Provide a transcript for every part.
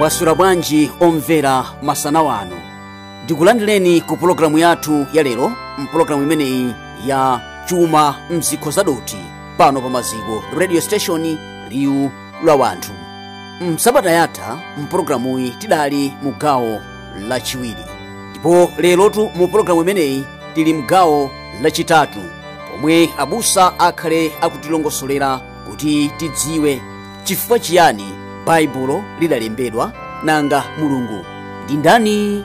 Mwaswera bwanji omvera masana wano. Ndikulandireni ku pulogalamu yathu ya lero, mpulogalamu imeneyi ya Chuma Mzikho Zadothi pano pa Maziko Radio Station, liwu la wanthu. Msabata yatha mpulogalamuyi tidali mu gawo lachiwiri, ndipo lerotu mu pulogalamu imeneyi tili mgawo lachitatu, pomwe abusa akhale akutilongosolera kuti tidziwe chifukwa chiyani Baibulo lidalembedwa, nanga Mulungu ndi ndani.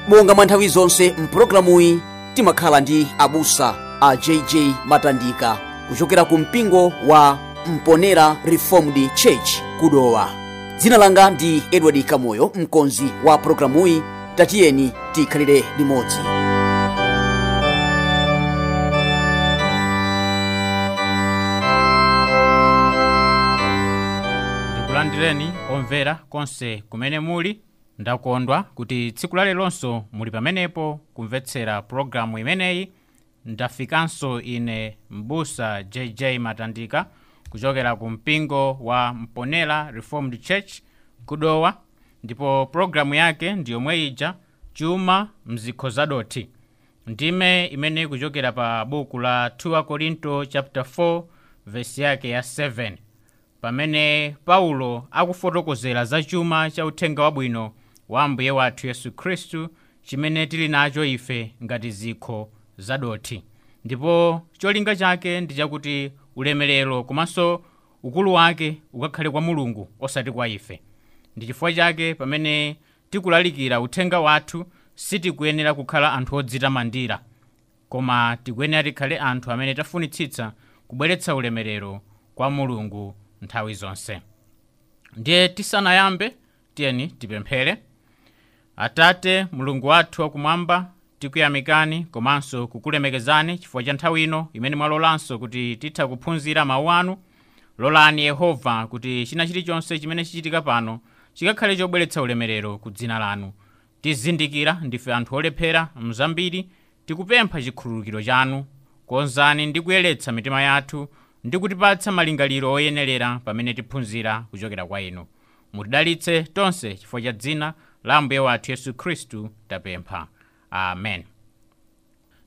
Monga mwa nthawi zonse mpulogalamuyi timakhala ndi abusa a JJ Matandika kuchokera ku mpingo wa Mponera Reformed Church kudowa. Dzina langa ndi Edward Kamoyo, mkonzi wa pulogalamuyi. Tatiyeni tikhalire limodzi. Ndikulandireni omvera konse kumene muli. Ndakondwa kuti tsiku lalelonso muli pamenepo kumvetsera pulogalamu imeneyi. Ndafikanso ine mbusa JJ Matandika kuchokera ku mpingo wa Mponera Reformed Church kudowa, ndipo pulogalamu yake ndi yomwe ija, Chuma Mzikho Zadothi, ndime imene kuchokera pa buku la 2 Korinto chapter 4 verse yake ya 7, pamene Paulo akufotokozera za chuma cha uthenga wabwino wa Ambuye wathu Yesu Khristu chimene tili nacho ife ngati zikho zadothi. Ndipo cholinga chake ndi chakuti ulemerero komanso ukulu wake ukakhale kwa Mulungu osati kwa ife. Ndi chifukwa chake pamene tikulalikira uthenga wathu sitikuyenera kukhala anthu odzitamandira, koma tikuyenera tikhale anthu amene tafunitsitsa kubweretsa ulemerero kwa Mulungu nthawi zonse. Ndiye tisanayambe, tiyeni tipemphere. Atate Mulungu wathu wakumwamba, tikuyamikani komanso kukulemekezani chifukwa cha nthawi ino imene mwalolanso kuti titha kuphunzira mawu anu. Lolani Yehova kuti china chilichonse chimene chichitika pano chikakhale chobweretsa ulemerero ku dzina lanu. Tizindikira ndife anthu olephera mzambiri, tikupempha chikhululukiro chanu. Konzani ndi kuyeretsa mitima yathu ndi kutipatsa malingaliro oyenerera pamene tiphunzira kuchokera kwa inu. Mutidalitse tonse chifukwa cha dzina la Ambuye wathu Yesu Khristu tapempha. Amen.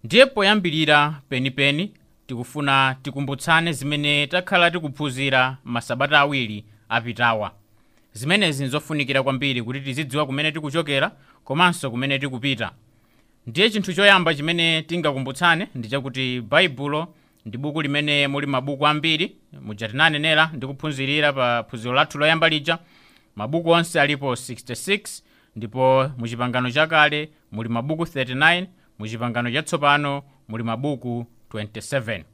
Ndiye poyambirira penipeni tikufuna tikumbutsane zimene takhala tikuphunzira masabata awiri apitawa. Zimenezi nzofunikira kwambiri kuti tizidziwa kumene tikuchokera komanso kumene tikupita. Ndiye chinthu choyamba chimene tingakumbutsane ndi chakuti Baibulo ndi buku limene muli mabuku ambiri, muja tinanenera ndi kuphunzirira pa phunziro lathu loyamba lija. Mabuku onse alipo 66, ndipo mu Chipangano Chakale muli mabuku 39, mu Chipangano Chatsopano muli mabuku 27.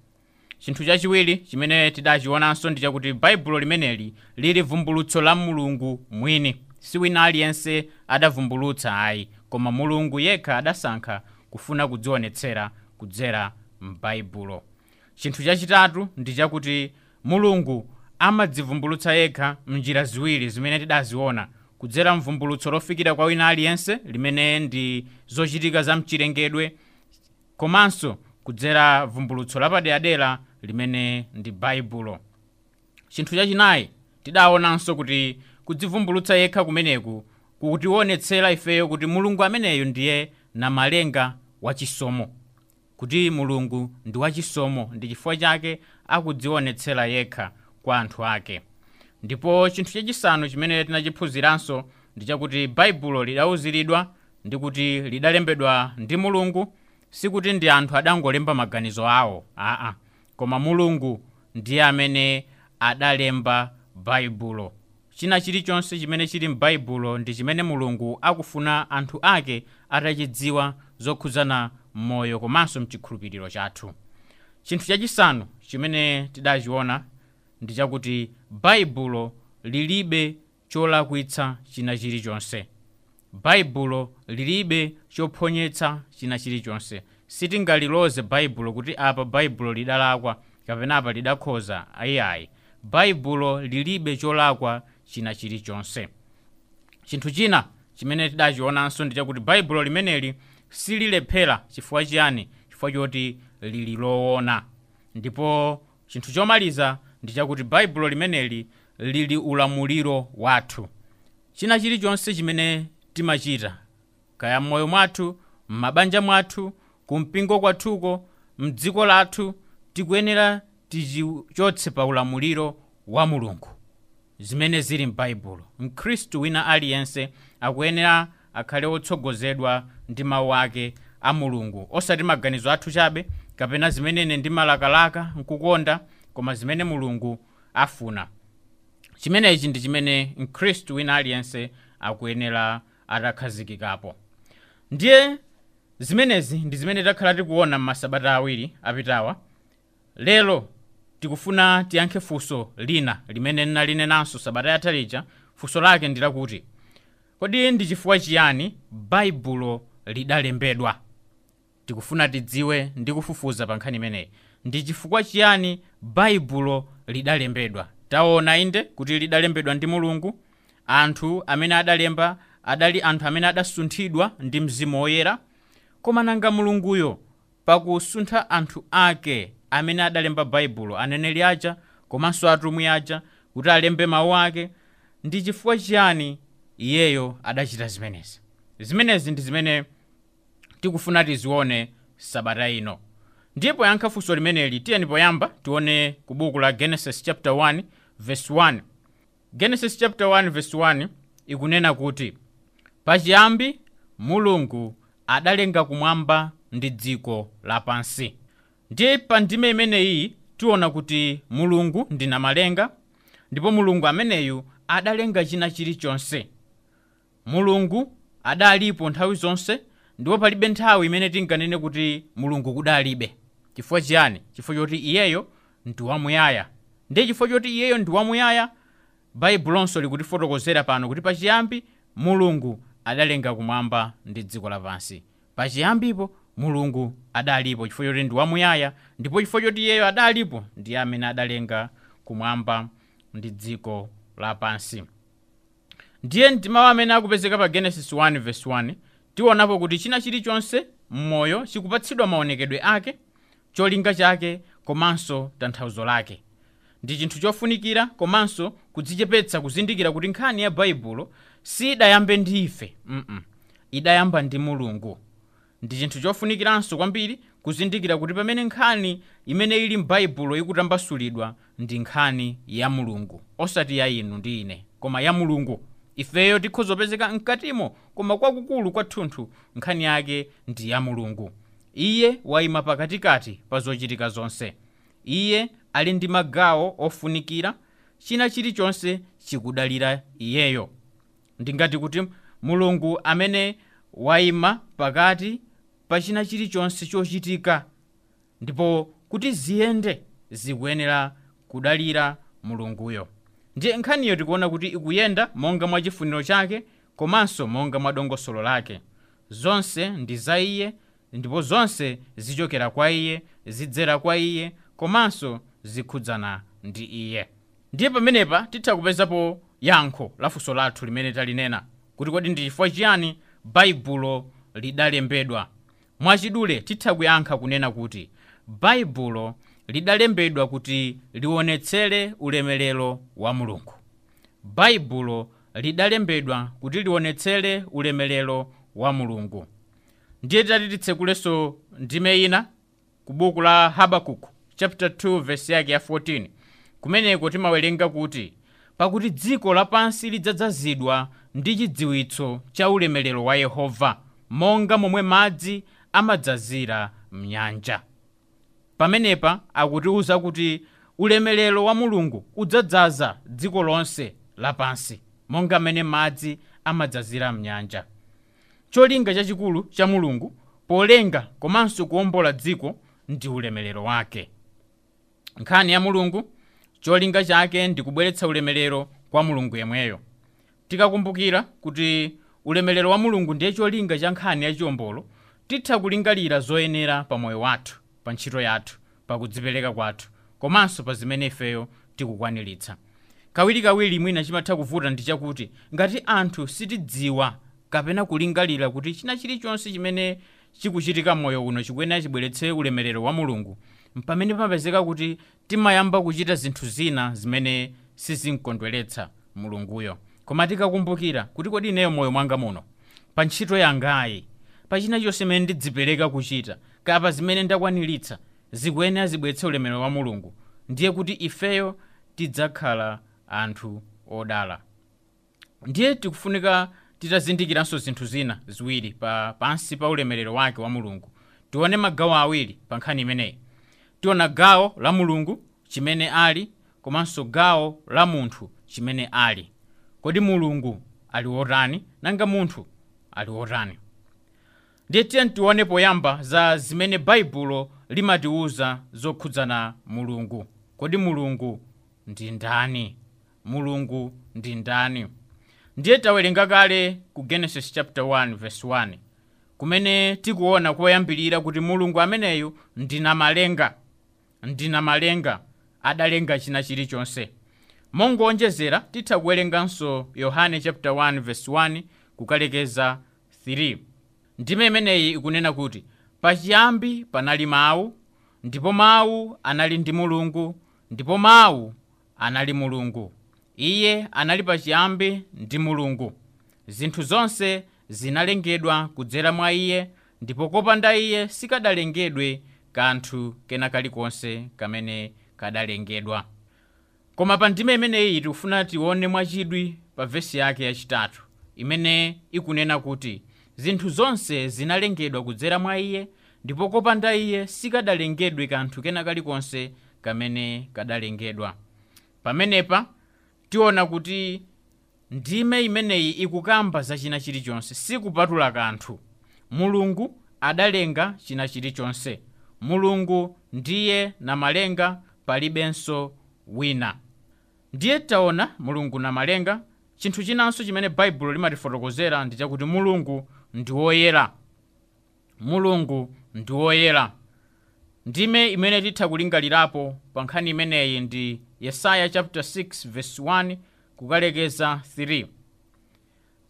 Chinthu chachiwiri chimene tidachionanso ndi chakuti Baibulo limeneli lili vumbulutso la Mulungu mwini. Si wina aliyense adavumbulutsa ayi, koma Mulungu yekha adasankha kufuna kudzionetsera kudzera m'Baibulo. Chinthu chachitatu ndi chakuti Mulungu amadzivumbulutsa yekha mnjira ziwiri zimene tidaziona, kudzera mvumbulutso lofikira kwa wina aliyense limene ndi zochitika za mchilengedwe, komanso kudzera vumbulutso lapaderadera limene ndi Baibulo. Chinthu chachinayi tidaonanso kuti kudzivumbulutsa yekha kumeneku kukutionetsera ifeyo kuti Mulungu ameneyo ndiye namalenga wachisomo, kuti Mulungu ndi wachisomo, ndi chifukwa chake akudzionetsera yekha kwa anthu ake. Ndipo chinthu chachisanu chimene tinachiphunziranso ndi chakuti Baibulo lidauziridwa ndi kuti lidalembedwa ndi Mulungu, sikuti ndi anthu adangolemba maganizo awo, aa, koma Mulungu ndiye amene adalemba Baibulo. China chilichonse chimene chili m'Baibulo ndi chimene Mulungu akufuna anthu ake atachidziwa zokhudzana moyo komanso mchikhulupiriro chathu. Chinthu chachisanu chimene tidachiona ndi chakuti Baibulo lilibe cholakwitsa china chilichonse. Baibulo lilibe chophonyetsa china chilichonse. Sitingaliloze Baibulo kuti apa Baibulo lidalakwa kapena apa lidakhoza, ayiayi. Baibulo lilibe cholakwa china chilichonse. Chinthu china chimene tidachionanso ndi chakuti Baibulo limeneli sililephera. Chifukwa chiyani? Chifukwa choti lili loona. Ndipo chinthu chomaliza ndi chakuti Baibulo limeneli lili ulamuliro wathu. China chilichonse chimene timachita, kaya m'moyo mwathu, m'mabanja mwathu, kumpingo kwathuko, mdziko lathu, tikuyenera tichichotse pa ulamuliro wa Mulungu zimene zili m'Baibulo. Mkhristu wina aliyense akuyenera akhale wotsogozedwa ndi mawu ake a Mulungu, osati maganizo athu chabe kapena zimene ine ndimalakalaka nkukonda, koma zimene Mulungu afuna. Chimenechi ndi chimene mkhristu wina aliyense akuyenera atakhazikikapo. Ndiye zimenezi ndi zimene takhala tikuona m'masabata awiri apitawa. Lero tikufuna tiyankhe funso lina limene ndinalinenanso sabata yatha lija. Funso lake ndi lakuti, kodi ndi chifukwa chiyani Baibulo lidalembedwa? Tikufuna tidziwe ndi kufufuza pa nkhani imeneyi. Ndi chifukwa chiyani Baibulo lidalembedwa? Taona inde kuti lidalembedwa ndi Mulungu. Anthu amene adalemba adali anthu amene adasunthidwa ndi Mzimu Woyera. Koma nanga Mulunguyo pakusuntha anthu ake amene adalemba Baibulo, aneneri aja komanso atumwi aja, kuti alembe mawu ake, ndi chifukwa chiyani iyeyo adachita zimenezi? Zimenezi ndi zimene tikufuna tizione sabata ino. Ndiye poyankha funso limeneli, tiyeni poyamba tione ku buku la Genesis chapter 1 verse 1. Genesis chapter 1 verse 1 ikunena kuti, pachiyambi Mulungu adalenga kumwamba ndi dziko lapansi. Ndiye pa ndime imeneyi tiona kuti Mulungu ndi namalenga, ndipo Mulungu ameneyu adalenga china chilichonse. Mulungu adalipo nthawi zonse, ndipo palibe nthawi imene tinganene kuti Mulungu kudalibe. Chifukwa chiyani? Chifukwa choti iyeyo ndi wamuyaya. Ndiye chifukwa choti iyeyo ndi wamuyaya, Baibulonso likutifotokozera pano kuti pachiyambi Mulungu adalenga kumwamba ndi dziko lapansi. Pachiyambipo Mulungu adalipo chifukwa choti ndi wamuyaya, ndipo chifukwa choti iyeyo adalipo ndiye amene adalenga kumwamba ndi dziko lapansi. Ndiye ndi mawu amene akupezeka pa Genesis 1 verse 1, tionapo kuti china chilichonse m'moyo chikupatsidwa maonekedwe ake, cholinga chake komanso tanthauzo lake. Ndi chinthu chofunikira komanso kudzichepetsa kuzindikira kuti nkhani ya Baibulo sidayambe ndi ife, idayamba ndi Mulungu. Ndi chinthu chofunikiranso kwambiri kuzindikira kuti pamene nkhani imene ili m'Baibulo ikutambasulidwa ndi nkhani ya Mulungu, osati ya inu ndi ine, koma ya Mulungu. Ifeyo tikhozopezeka mkatimo, koma kwakukulu kwathunthu nkhani yake ndi ya Mulungu. Iye wayima pakatikati pa zochitika zonse. Iye ali ndi magawo ofunikira, china chilichonse chikudalira iyeyo. Ndingati kuti Mulungu amene wayima pakati pa china chilichonse chochitika, ndipo kuti ziyende zikuyenera kudalira Mulunguyo. Ndiye nkhaniyo tikuona kuti ikuyenda monga mwa chifuniro chake komanso monga mwa dongosolo lake. Zonse ndi za iye, ndipo zonse zichokera kwa iye, zidzera kwa iye, komanso zikhudzana ndi iye. Ndiye pamenepa titha kupezapo yankho la funso lathu limene talinena kuti kodi ndi chifukwa chiyani Baibulo lidalembedwa. Mwachidule titha kuyankha kunena kuti Baibulo lidalembedwa kuti lionetsere ulemerero wa Mulungu. Baibulo lidalembedwa kuti lionetsere ulemerero wa Mulungu. Ndiye tati titsekulenso ndime ina ku buku la Habakuku chapter 2 verse yake ya 14. Kumeneko timawerenga kuti, pakuti dziko lapansi lidzadzazidwa ndi chidziwitso cha ulemerero wa Yehova, monga momwe madzi amadzazira mnyanja. Pamenepa akutiuza kuti ulemerero wa Mulungu udzadzaza dziko lonse lapansi, monga mmene madzi amadzazira mnyanja. Cholinga chachikulu cha Mulungu polenga komanso kuwombola dziko ndi ulemerero wake. Nkhani ya Mulungu, cholinga chake ndi kubweretsa ulemerero kwa Mulungu yemweyo. Tikakumbukira kuti ulemerero wa Mulungu ndiye cholinga cha nkhani ya chiwombolo, titha kulingalira zoyenera pa moyo wathu, pa ntchito yathu, pa kudzipereka kwathu, komanso pa zimene ifeyo tikukwaniritsa. Kawirikawiri mwina chimatha kuvuta ndi chakuti ngati anthu sitidziwa kapena kulingalira kuti china chilichonse chimene chikuchitika moyo uno chikuyenera chibweretse ulemerero wa Mulungu, pamene pamapezeka kuti timayamba kuchita zinthu zina zimene sizinkondweretsa Mulunguyo. Koma tikakumbukira kuti kodi ineyo moyo mwanga muno, pa ntchito yangayi, pa china chonse chimene ndidzipereka kuchita, kapa zimene ndakwaniritsa, zikuyenera zibweretse ulemerero wa Mulungu, ndiye kuti ifeyo tidzakhala anthu odala. Ndiye tikufunika titazindikiranso zinthu zina ziwiri pansi pa ulemerero wake wa Mulungu. Tione magawo awiri pa nkhani imeneyi. Tiona gawo la Mulungu chimene ali, komanso gawo la munthu chimene ali. Kodi Mulungu ali wotani, nanga munthu ali wotani? Ndiye tiye tione poyamba za zimene Baibulo limatiwuza zokhudzana Mulungu. Kodi Mulungu ndi ndani? Mulungu ndi ndani? Ndiye tawerenga kale ku Genesis chapter 1 verse 1, kumene tikuona koyambirira kuti Mulungu ameneyu ndi namalenga, ndi namalenga, adalenga china chilichonse. Mongonjezera titha kuwerenganso Yohane chapter 1 verse 1 kukalekeza 3. Ndime imeneyi ikunena kuti pachiyambi panali mawu, ndipo mawu anali ndi Mulungu, ndipo mawu anali Mulungu. Iye anali pachiyambi ndi Mulungu. Zinthu zonse zinalengedwa kudzera mwa iye, ndipo kopanda iye sikadalengedwe kanthu kena kalikonse kamene kadalengedwa. Koma pa ndime imeneyi tikufuna tione mwachidwi pa vesi yake yachitatu, imene ikunena kuti zinthu zonse zinalengedwa kudzera mwa iye, ndipo kopanda iye sikadalengedwe kanthu kena kalikonse kamene kadalengedwa. Pamenepa tiona kuti ndime imeneyi ikukamba za china chilichonse, sikupatula kanthu. Mulungu adalenga china chilichonse. Mulungu ndiye namalenga, palibenso wina. Ndiye taona Mulungu namalenga. Chinthu chinanso chimene Baibulo limatifotokozera ndi chakuti Mulungu ndi woyera. Mulungu ndi woyera. Ndime imene titha kulingalirapo pa nkhani imeneyi ndi Yesaya chapter 6 verse 1 kukalekeza 3.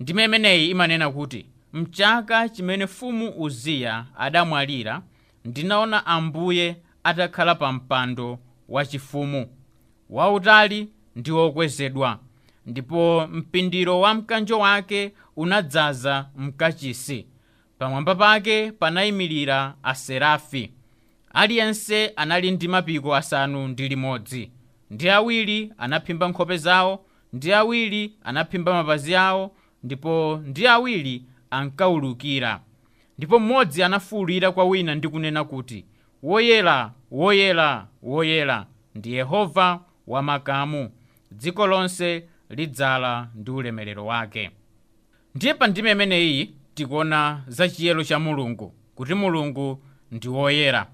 Ndime imeneyi imanena kuti mchaka chimene mfumu Uziya adamwalira, ndinaona Ambuye atakhala pa mpando wachifumu, wautali ndi wokwezedwa, ndipo mpindiro wa mkanjo wake unadzaza mkachisi. Pamwamba pake panayimirira aserafi. Aliyense anali ndi mapiko 6, ndi awiri anaphimba nkhope zawo, ndi awiri anaphimba mapazi awo, ndipo ndi awiri ankawulukira. Ndipo mmodzi anafuwulira kwa wina ndi kunena kuti, woyera, woyera, woyera ndi Yehova wamakamu, dziko lonse lidzala ndi ulemerero wake. Ndiye pa ndime imeneyi tikuona za chiyero cha Mulungu, kuti Mulungu ndi woyera.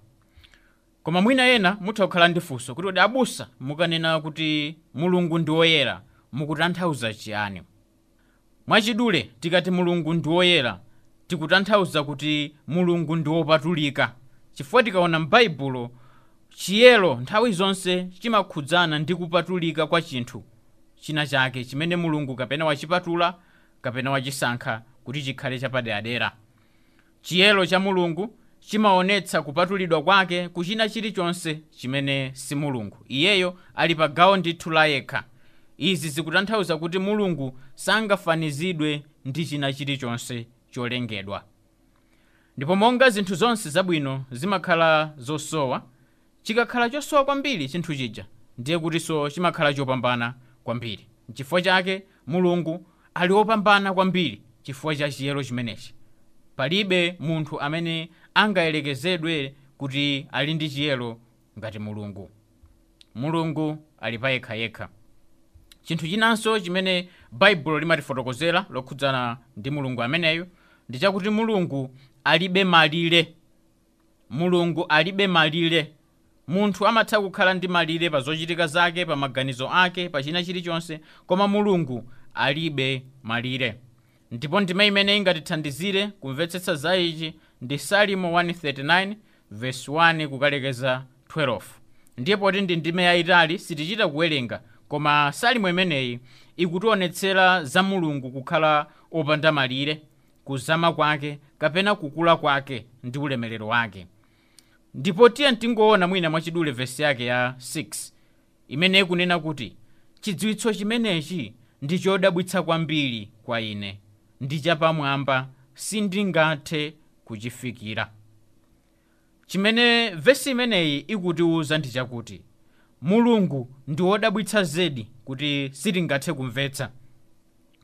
Koma mwina ena mutha kukhala ndi funso kuti kodi abusa mukanena kuti Mulungu ndi woyera mukutanthauza chiyani? Mwachidule tikati Mulungu ndi woyera tikutanthauza kuti Mulungu ndi wopatulika, chifukwa tikaona m'Baibulo chiyero nthawi zonse chimakhudzana ndi kupatulika kwa chinthu china chake chimene Mulungu kapena wachipatula kapena wachisankha kuti chikhale chapaderadera. Chiyero cha Mulungu chimaonetsa kupatulidwa kwake kuchina chilichonse chimene si Mulungu. Iyeyo ali pa gawo ndithu la yekha. Izi zikutanthauza kuti Mulungu sangafanizidwe ndi china chilichonse cholengedwa. Ndipo monga zinthu zonse zabwino zimakhala zosowa, chikakhala chosowa kwambiri chinthu chija, ndiye kutinso chimakhala chopambana kwambiri. Chifukwa chake Mulungu ali wopambana kwambiri chifukwa cha chiyero chimenechi. Palibe munthu amene angayerekezedwe kuti ali ndi chiyero ngati Mulungu. Mulungu ali pa yekhayekha. Chinthu chinanso chimene Baibulo limatifotokozera lokhudzana ndi Mulungu ameneyu ndi chakuti Mulungu alibe malire. Mulungu alibe malire. Munthu amatha kukhala ndi malire pa zochitika zake, pa maganizo ake, pa china chilichonse, koma Mulungu alibe malire. Ndipo ndime imene ingatithandizire kumvetsetsa za ichi ndi Salimo 139 verse 1 kukalekeza 12. Ndiye poti ndi ndime yayitali sitichita kuwerenga, koma Salimo imeneyi ikutionetsera za Mulungu kukhala opanda malire, kuzama kwake kapena kukula kwake ndi ulemerero wake. Ndipo tiye tingoona mwina mwachidule vesi yake ya 6 imene ikunena kuti chidziwitso chimenechi Ndi chodabwitsa kwambiri kwa ine, ndi chapamwamba, sindingathe kuchifikira. Chimene vesi imeneyi ikutiwuza ndi chakuti Mulungu ndi wodabwitsa zedi kuti sitingathe kumvetsa.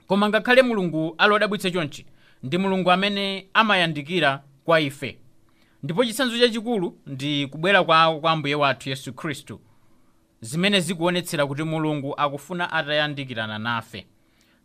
Koma ngakhale Mulungu ali wodabwitsa chonchi, ndi Mulungu amene amayandikira kwa ife. Ndipo chitsanzo chachikulu ndi kubwera kwawo kwa Ambuye wathu Yesu Khristu, zimene zikuonetsera kuti Mulungu akufuna atayandikirana nafe.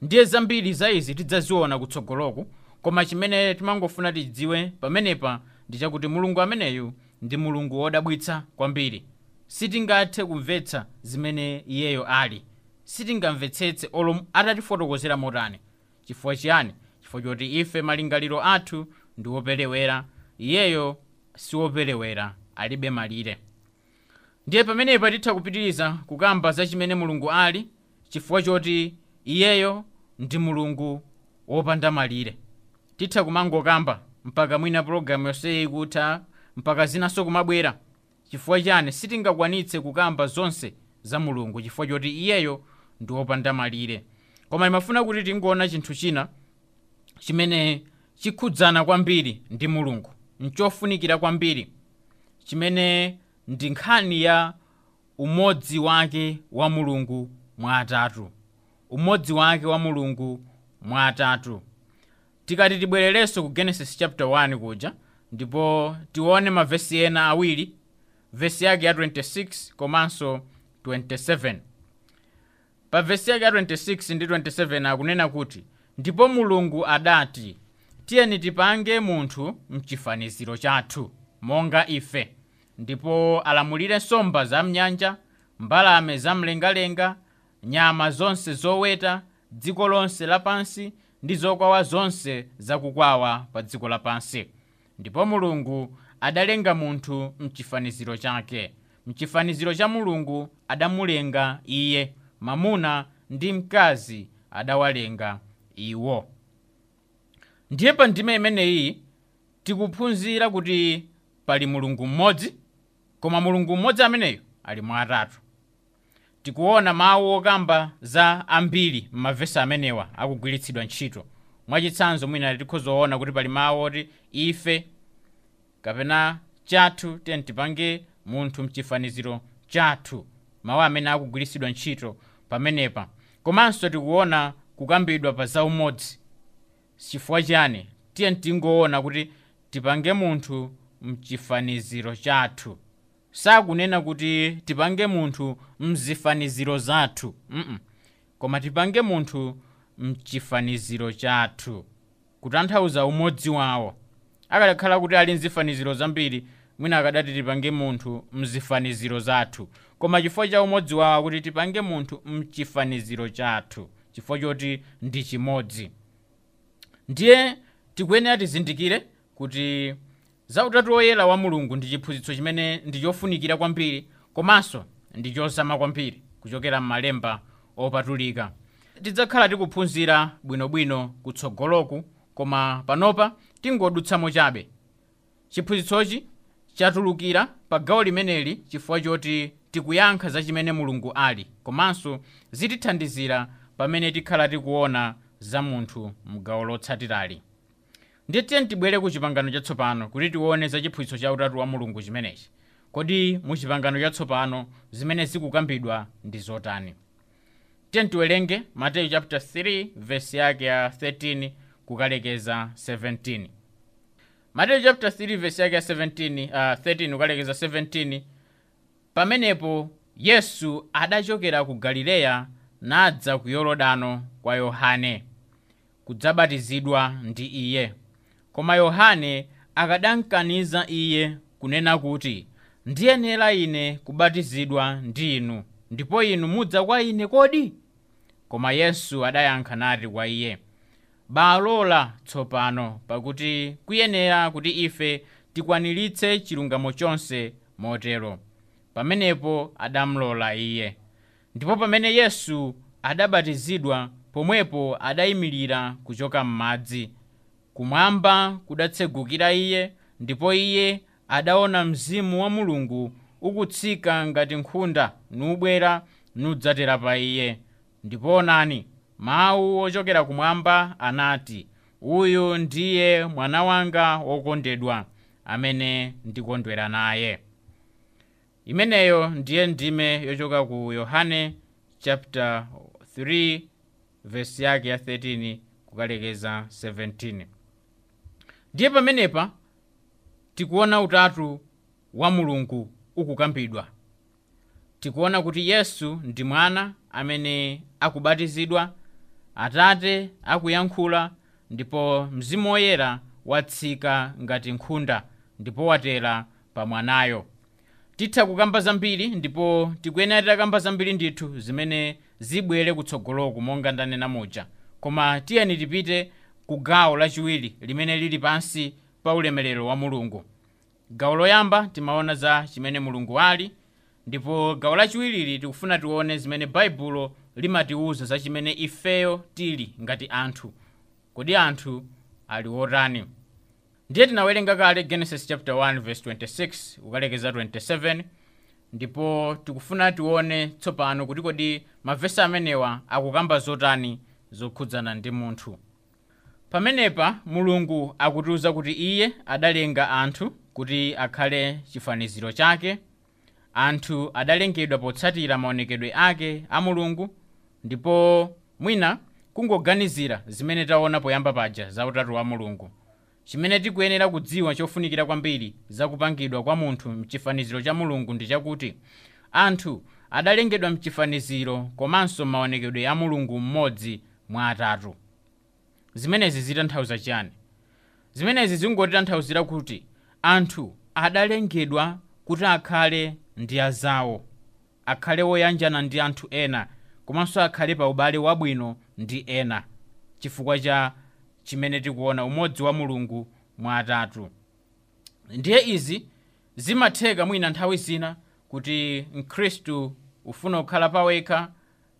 Ndiye zambiri za izi tidzaziona kutsogoloku, koma chimene timangofuna tidziwe pamenepa ndi chakuti Mulungu ameneyu ndi Mulungu wodabwitsa kwambiri. Sitingathe kumvetsa zimene iyeyo ali, sitingamvetsetse olo atatifotokozera motani. Chifukwa chiyani? Chifukwa choti ife malingaliro athu ndi woperewera, iyeyo siwoperewera, alibe malire. Ndiye pamenepa titha kupitiriza kukamba za chimene Mulungu ali, chifukwa choti iyeyo ndi Mulungu wopanda malire. Titha kumangokamba mpaka mwina pologalamu yonseyi ikutha, mpaka zinanso kumabwera. Chifukwa chani? Sitingakwanitse kukamba zonse za Mulungu chifukwa choti iyeyo ndi wopanda malire. Koma imafuna kuti tingoona chinthu china chimene chikhudzana kwambiri ndi Mulungu, nchofunikira kwambiri, chimene ndi nkhani ya umodzi wake wa Mulungu mwa atatu. Umodzi wake wa Mulungu mwa atatu. Tikati tibwererenso ku Genesis chapter 1 kuja, ndipo tione mavesi ena awiri, vesi yake ya 26 komanso 27. Pa vesi yake ya 26 ndi 27 akunena kuti, ndipo Mulungu adati, tiyeni tipange munthu mchifaniziro chathu, monga ife, ndipo alamulire nsomba za mnyanja, mbalame za mlengalenga, nyama zonse zoweta, dziko lonse lapansi, ndi zokwawa zonse zakukwawa pa dziko lapansi. Ndipo Mulungu adalenga munthu mchifaniziro chake. Mchifaniziro cha Mulungu adamulenga iye, mamuna ndi mkazi adawalenga iwo. Ndiye pa ndime imeneyi tikuphunzira kuti pali Mulungu mmodzi, koma Mulungu mmodzi ameneyo ali mwa atatu. Tikuona mawu okamba za ambiri m'mavesi amenewa akugwiritsidwa ntchito. Mwachitsanzo mwina tikhozoona kuti pali mawu oti ife kapena chathu, tiyeni tipange munthu mchifaniziro chathu, mawu amene akugwiritsidwa ntchito pamenepa. Komanso tikuona kukambidwa pa zaumodzi. Chifukwa chani? Tiyeni tingoona kuti tipange munthu mchifaniziro chathu. Sakunena kuti tipange munthu mzifaniziro zathu, koma tipange munthu mchifaniziro chathu, kutanthauza umodzi wawo. Akadakhala kuti ali mzifaniziro zambiri, mwina akadati tipange munthu mzifaniziro zathu, koma chifukwa cha umodzi wawo kuti tipange munthu mchifaniziro chathu, chifukwa choti ndi chimodzi. Ndiye tikuyenera tizindikire kuti za utatu woyera wa Mulungu ndi chiphunzitso chimene ndi chofunikira kwambiri, komanso ndi chozama kwambiri kuchokera m'malemba opatulika. Tidzakhala tikuphunzira bwinobwino kutsogoloku, koma panopa tingodutsamo chabe. Chiphunzitsochi chatulukira pa gawo limeneli chifukwa choti tikuyankha za chimene Mulungu ali, komanso zitithandizira pamene tikhala tikuona za munthu mgawo lotsatirali. Ndiye tiyeni tibwere ku chipangano chatsopano kuti tione za chiphunzitso cha utatu wa Mulungu chimenechi. Kodi mu chipangano chatsopano zimene zikukambidwa ndi zotani? Tiyeni tiwerenge Mateyu chapter 3 verse yake ya 13 kukalekeza 17. Mateyu chapter 3 verse yake ya 13 kukalekeza 17. Pamenepo Yesu adachokera ku Galileya nadza ku Yorodano kwa Yohane kudzabatizidwa ndi iye. Koma Yohane akadamkaniza iye kunena kuti, ndiyenera ine kubatizidwa ndi inu, ndipo inu mudza kwa ine kodi? Koma Yesu adayankha nati kwa iye, balola tsopano, pakuti kuyenera kuti ife tikwaniritse chilungamo chonse motero. Pamenepo adamlola iye. Ndipo pamene Yesu adabatizidwa, pomwepo adayimirira kuchoka m'madzi. Kumwamba kudatsegukira iye, ndipo iye adaona Mzimu wa Mulungu ukutsika ngati nkhunda nubwera nudzatera pa iye. Ndipo onani, Mawu ochokera kumwamba anati, uyu ndiye mwana wanga wokondedwa amene ndikondwera naye. Imeneyo ndiye ndime yochoka ku Yohane chapter 3 verse yake ya 13 kukalekeza 17. Ndiye pamenepa tikuona utatu wa Mulungu ukukambidwa. Tikuona kuti Yesu ndi mwana amene akubatizidwa, Atate akuyankhula, ndipo Mzimu Woyera watsika ngati nkhunda ndipo watera pa mwanayo. Titha kukamba zambiri ndipo tikuyenera titakamba zambiri ndithu zimene zibwere kutsogoloku monga ndanena muja, koma tiyeni tipite ku gawo lachiwiri limene lili pansi pa ulemerero wa Mulungu. Gawo loyamba timaona za chimene Mulungu ali, ndipo gawo lachiwirili tikufuna tione zimene Baibulo limatiwuza za chimene ifeyo tili ngati anthu. Kodi anthu ali otani? Ndiye tinawerenga kale Genesis chapter 1 verse 26 kukalekeza 27, ndipo tikufuna tione tsopano kuti kodi mavesi amenewa akukamba zotani zokhudzana ndi munthu. Pamenepa Mulungu akutiwuza kuti iye adalenga anthu kuti akhale chifaniziro chake. Anthu adalengedwa potsatira maonekedwe ake a Mulungu, ndipo mwina kungoganizira zimene taona poyamba paja za utatu wa Mulungu. Chimene tikuyenera kudziwa chofunikira kwambiri za kupangidwa kwa munthu mchifaniziro cha Mulungu ndi chakuti anthu adalengedwa mchifaniziro komanso maonekedwe a Mulungu mmodzi mwa atatu. Zimenezi zitanthauza chiyani? Zimenezi zingotitanthauzira kuti anthu adalengedwa kuti akhale ndi azawo, akhale woyanjana ndi anthu ena, komanso akhale pa ubale wabwino ndi ena, chifukwa cha chimene tikuona umodzi wa Mulungu mwa atatu. Ndiye izi zimatheka mwina nthawi zina kuti Mkhristu ufuna kukhala pawekha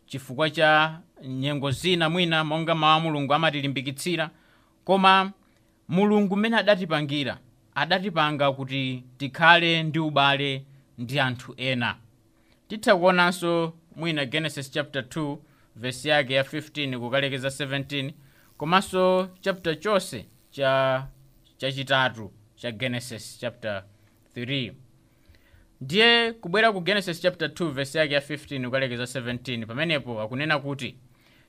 chifukwa cha nyengo zina mwina monga mawu a Mulungu amatilimbikitsira, koma Mulungu mmene adatipangira, adatipanga kuti tikhale ndi ubale ndi anthu ena. Titha kuonanso mwina Genesis chapter 2 verse yake ya 15 kukalekeza 17, komanso chapter chonse chachitatu cha Genesis chapter 3. Ndiye kubwera ku Genesis chapter 2 verse yake ya 15 kukalekeza 17, pamenepo akunena kuti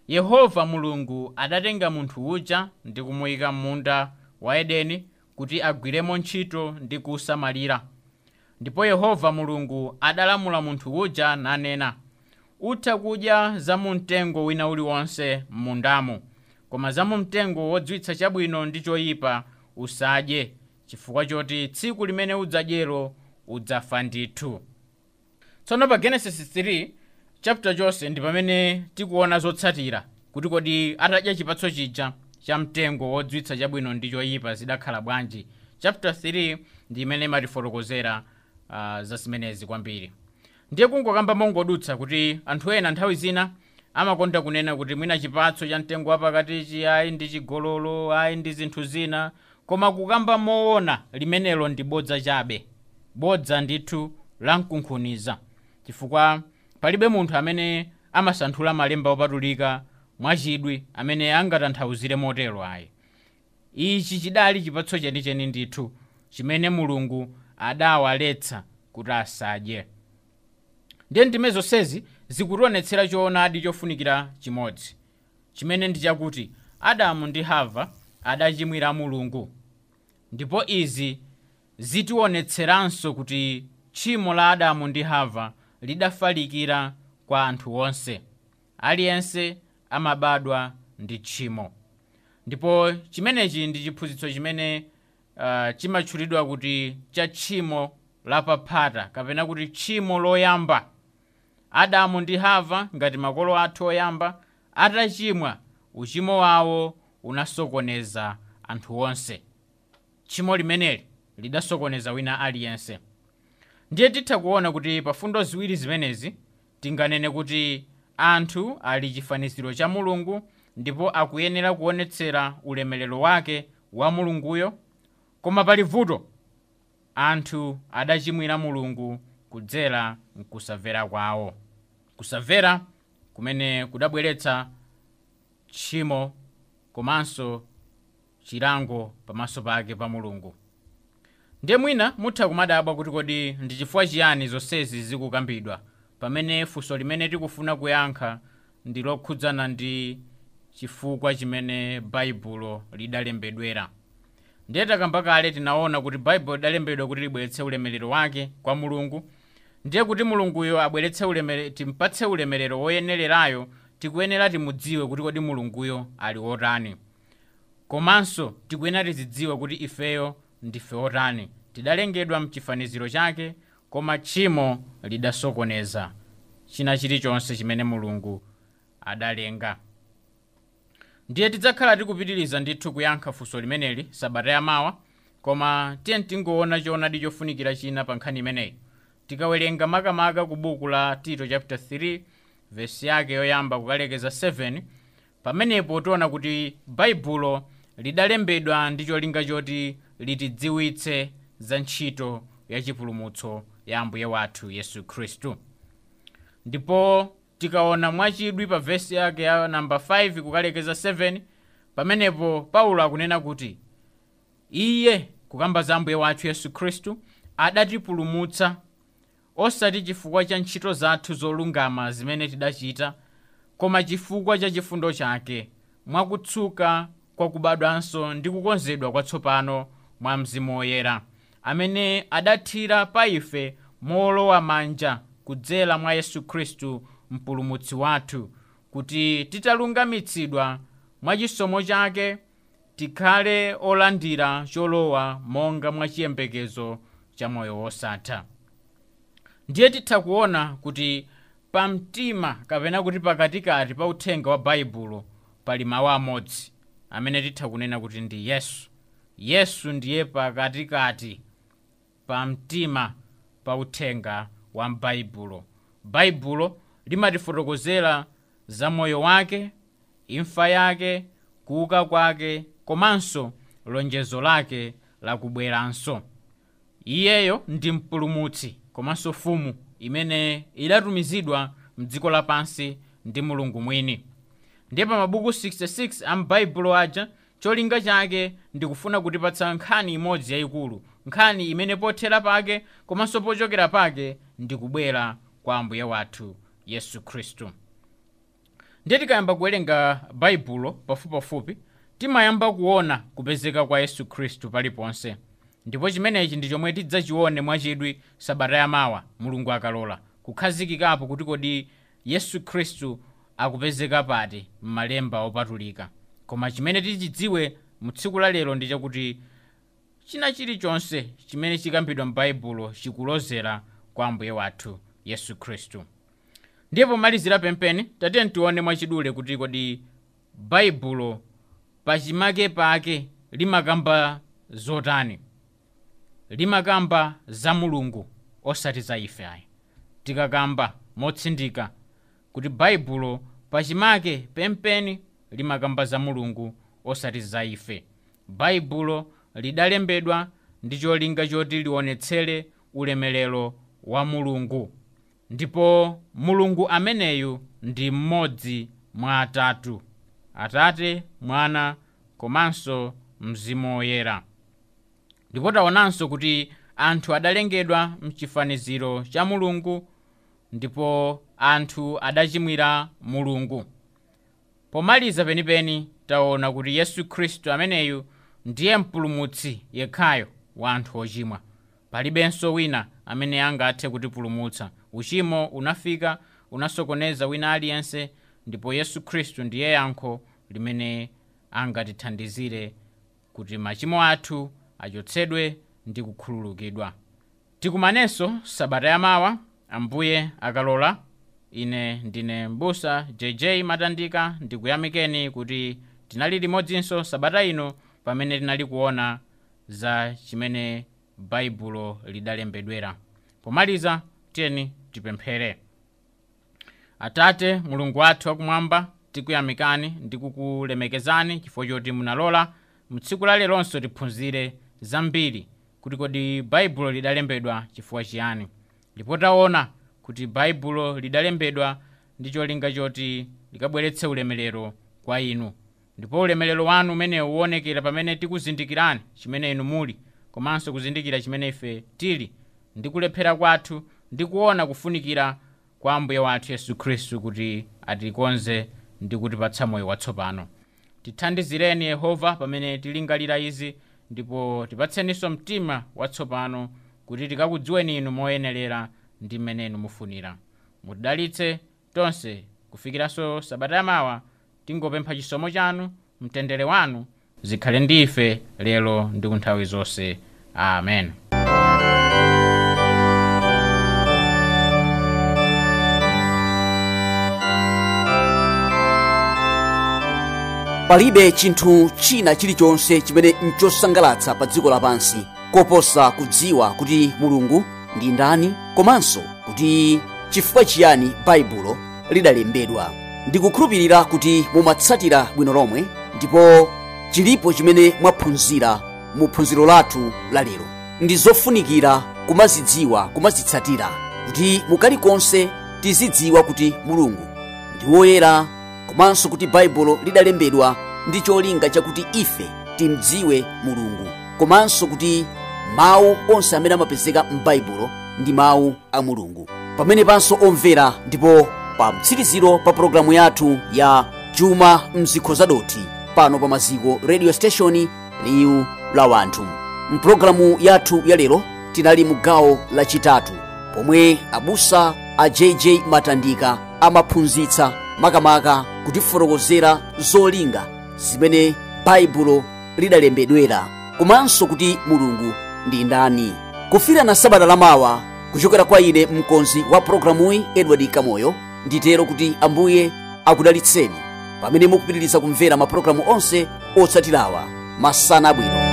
Yehova Mulungu adatenga munthu uja ndi kumuyika m'munda wa Edeni kuti agwiremo ntchito ndi kusamalira. Ndipo Yehova Mulungu adalamula munthu uja nanena, utha kudya za mu mtengo wina uliwonse m'mundamo, koma za mu mtengo wodziwitsa chabwino ndi choyipa usadye, chifukwa choti tsiku limene udzadyero udzafa ndithu. Tsono pa Genesis 3 chapter chonse ndi pamene tikuona zotsatira kuti kodi atadya chipatso chija cha mtengo wodziwitsa chabwino ndi choyipa zidakhala bwanji. Chapter 3 ndi imene imatifotokozera za zimenezi kwambiri. Ndiye kungokamba mongodutsa kuti anthu ena nthawi zina amakonda kunena kuti mwina chipatso cha mtengo wapakatichi ayi ndi chigololo, ayi ndi zinthu zina, koma kukamba moona limenelo ndi bodza chabe, bodza ndithu lamkunkhuniza, chifukwa palibe munthu amene amasanthula malemba opatulika mwachidwi amene angatanthauzire motero ayi. Ichi chidali chipatso chenicheni ndithu chimene Mulungu adawaletsa kuti asadye. Ndiye ndime zonsezi zikutionetsera choonadi chofunikira chimodzi, chimene ndi chakuti Adamu ndi Hava adachimwira Mulungu, ndipo izi zitionetseranso kuti tchimo la Adamu ndi Hava lidafalikira kwa anthu onse. Aliyense amabadwa ndi tchimo, ndipo chimenechi ndi chiphunzitso chimene chimatchulidwa kuti cha tchimo lapaphata kapena kuti tchimo loyamba. Adamu ndi Hava ngati makolo athu oyamba atachimwa, uchimo wawo unasokoneza anthu onse. Tchimo limeneli lidasokoneza wina aliyense. Ndiye titha kuona kuti pa fundo ziwiri zimenezi tinganene kuti anthu ali chifaniziro cha Mulungu ndipo akuyenera kuonetsera ulemerero wake wa Mulunguyo, koma pali vuto. Anthu adachimwira Mulungu kudzera mkusamvera kwawo, kusamvera kumene kudabweretsa tchimo komanso chilango pamaso pake pa Mulungu. Ndiye mwina mutha kumadabwa kuti kodi ndi chifukwa chiyani zonsezi zikukambidwa pamene funso limene tikufuna kuyankha ndi lokhudzana ndi chifukwa chimene Baibulo lidalembedwera. Ndiye takamba kale, tinaona kuti Baibulo lidalembedwa kuti libweretse ulemerero wake kwa Mulungu. Ndiye kuti Mulunguyo abweretse ulemerero, timpatse ulemerero woyenererayo, tikuyenera timudziwe kuti kodi Mulunguyo ali wotani, komanso tikuyenera tizidziwe kuti ifeyo ndife otani. Tidalengedwa mchifaniziro chake, koma tchimo lidasokoneza china chilichonse chimene Mulungu adalenga. Ndiye tidzakhala tikupitiriza ndithu kuyankha funso limeneli sabata yamawa, koma tiye tingoona choonadi chofunikira china pa nkhani imeneyi. Tikawerenga makamaka ku buku la Tito chapter 3 vesi yake yoyamba kukalekeza 7, pamenepo tiona kuti Baibulo lidalembedwa ndi cholinga choti litidziwitse za ntchito ya chipulumutso ya Ambuye wathu Yesu Khristu. Ndipo tikaona mwachidwi pa vesi yake ya namba 5 kukalekeza 7, pamenepo Paulo akunena kuti iye, kukamba za Ambuye wathu Yesu Khristu, adatipulumutsa osati chifukwa cha ntchito zathu zolungama zimene tidachita, koma chifukwa cha chifundo chake, mwakutsuka kwa kubadwanso ndi kukonzedwa kwatsopano mwa Mzimu Woyera, amene adathira pa ife mowolowa manja kudzera mwa Yesu Khristu mpulumutsi wathu, kuti titalungamitsidwa mwa chisomo chake tikhale olandira cholowa monga mwa chiyembekezo cha moyo wosatha. Ndiye titha kuona kuti pamtima kapena kuti pakatikati pa uthenga wa Baibulo pali mawu amodzi amene titha kunena kuti ndi Yesu. Yesu ndiye pakatikati pamtima pa uthenga wa Baibulo. Baibulo limatifotokozera za moyo wake, imfa yake, kuuka kwake, komanso lonjezo lake lakubweranso. Iyeyo ndi mpulumutsi komanso mfumu imene idatumizidwa mdziko lapansi ndi Mulungu mwini. Ndiye pa mabuku 66 a m'Baibulo aja, cholinga chake ndikufuna kutipatsa nkhani imodzi yayikulu, nkhani imene pothera pake komanso pochokera pake ndikubwera kwa Ambuye wathu Yesu Khristu. Ndiye tikayamba kuwerenga Baibulo pafupipafupi, timayamba kuona kupezeka kwa Yesu Khristu paliponse. Ndipo chimenechi ndi chomwe tidzachione mwachidwi sabata yamawa, Mulungu akalola, kukhazikikapo kuti kodi Yesu Khristu akupezeka pati m'malemba opatulika. Koma chimene tichidziwe mu tsiku la lero ndi chakuti china chilichonse chimene chikambidwa m'Baibulo chikulozera kwa Ambuye wathu Yesu Khristu. Ndiye pomalizira pempeni, tatiye tione mwachidule kuti kodi Baibulo pachimake pake limakamba zotani. Limakamba za Mulungu osati za ife ayi. Tikakamba motsindika kuti Baibulo pachimake pempeni limakamba za Mulungu osati za ife. Baibulo lidalembedwa ndi cholinga choti lionetsere ulemerero wa Mulungu, ndipo Mulungu ameneyu ndi mmodzi mwa atatu: Atate, Mwana komanso Mzimu Woyera. Ndipo taonanso kuti anthu adalengedwa mchifaniziro cha Mulungu, ndipo anthu adachimwira Mulungu. Pomaliza penipeni taona kuti Yesu Khristu ameneyu ndiye mpulumutsi yekhayo wa anthu ochimwa. Palibenso wina amene angathe kutipulumutsa. Uchimo unafika, unasokoneza wina aliyense, ndipo Yesu Khristu ndiye yankho limene angatithandizire kuti machimo athu achotsedwe ndi kukhululukidwa. Tikumanenso sabata yamawa, Ambuye akalola. Ine ndine Mbusa JJ Matandika, ndikuyamikeni kuti tinali limodzinso sabata ino pamene tinali kuona za chimene Baibulo lidalembedwera. Pomaliza tiyeni tipemphere. Atate Mulungu wathu wakumwamba, tikuyamikani ndi kukulemekezani chifukwa choti munalola mtsiku la leronso tiphunzire zambiri kuti kodi Baibulo lidalembedwa chifukwa chiyani. Ndipo taona kuti Baibulo lidalembedwa ndi cholinga choti likabweretse ulemerero kwa inu. Ndipo ulemerero wanu umenewu uwonekera pamene tikuzindikirani chimene inu muli, komanso kuzindikira chimene ife tili, ndi kulephera kwathu, ndi kuona kufunikira kwa Ambuye wathu Yesu Khristu kuti atikonze ndi kutipatsa moyo watsopano. Tithandizireni Yehova pamene tilingalira izi, ndipo tipatseninso mtima watsopano kuti tikakudziweni inu moyenerera ndi mmene inu mufunira. Mutidalitse tonse kufikiranso sabata yamawa. Tingopempha chisomo chanu, mtendere wanu zikhale ndi ife lero ndi kunthawi zonse. Amen. Palibe chinthu china chilichonse chimene nchosangalatsa pa dziko lapansi koposa kudziwa kuti Mulungu ndi ndani, komanso kuti chifukwa chiyani Baibulo lidalembedwa. Ndikukhulupirira kuti mumatsatira bwino lomwe, ndipo chilipo chimene mwaphunzira mu phunziro lathu la lero. Ndi zofunikira kumazidziwa, kumazitsatira, kuti mukalikonse tizidziwa kuti Mulungu ndi woyera, komanso kuti Baibulo lidalembedwa ndi cholinga chakuti ife timdziwe Mulungu, komanso kuti mawu onse amene amapezeka m'Baibulo ndi mawu a Mulungu. Pamene panso omvera, ndipo pa mtsiriziro pa pologalamu yathu ya Chuma Mzikho Zadothi pano pa Maziko Radio Station, liwu la wanthu. Mpulogalamu yathu ya lero tinali mu gawo lachitatu pomwe abusa a JJ Matandika amaphunzitsa makamaka kutifotokozera zolinga zimene Baibulo lidalembedwera, komanso kuti Mulungu ndi ndani. Kufirana sabata lamawa, kuchokera kwa ine mkonzi wa programuyi Edward Kamoyo, nditero kuti Ambuye akudalitseni pamene mukupitiriza kumvera mapulogalamu onse otsatirawa. Masana abwino.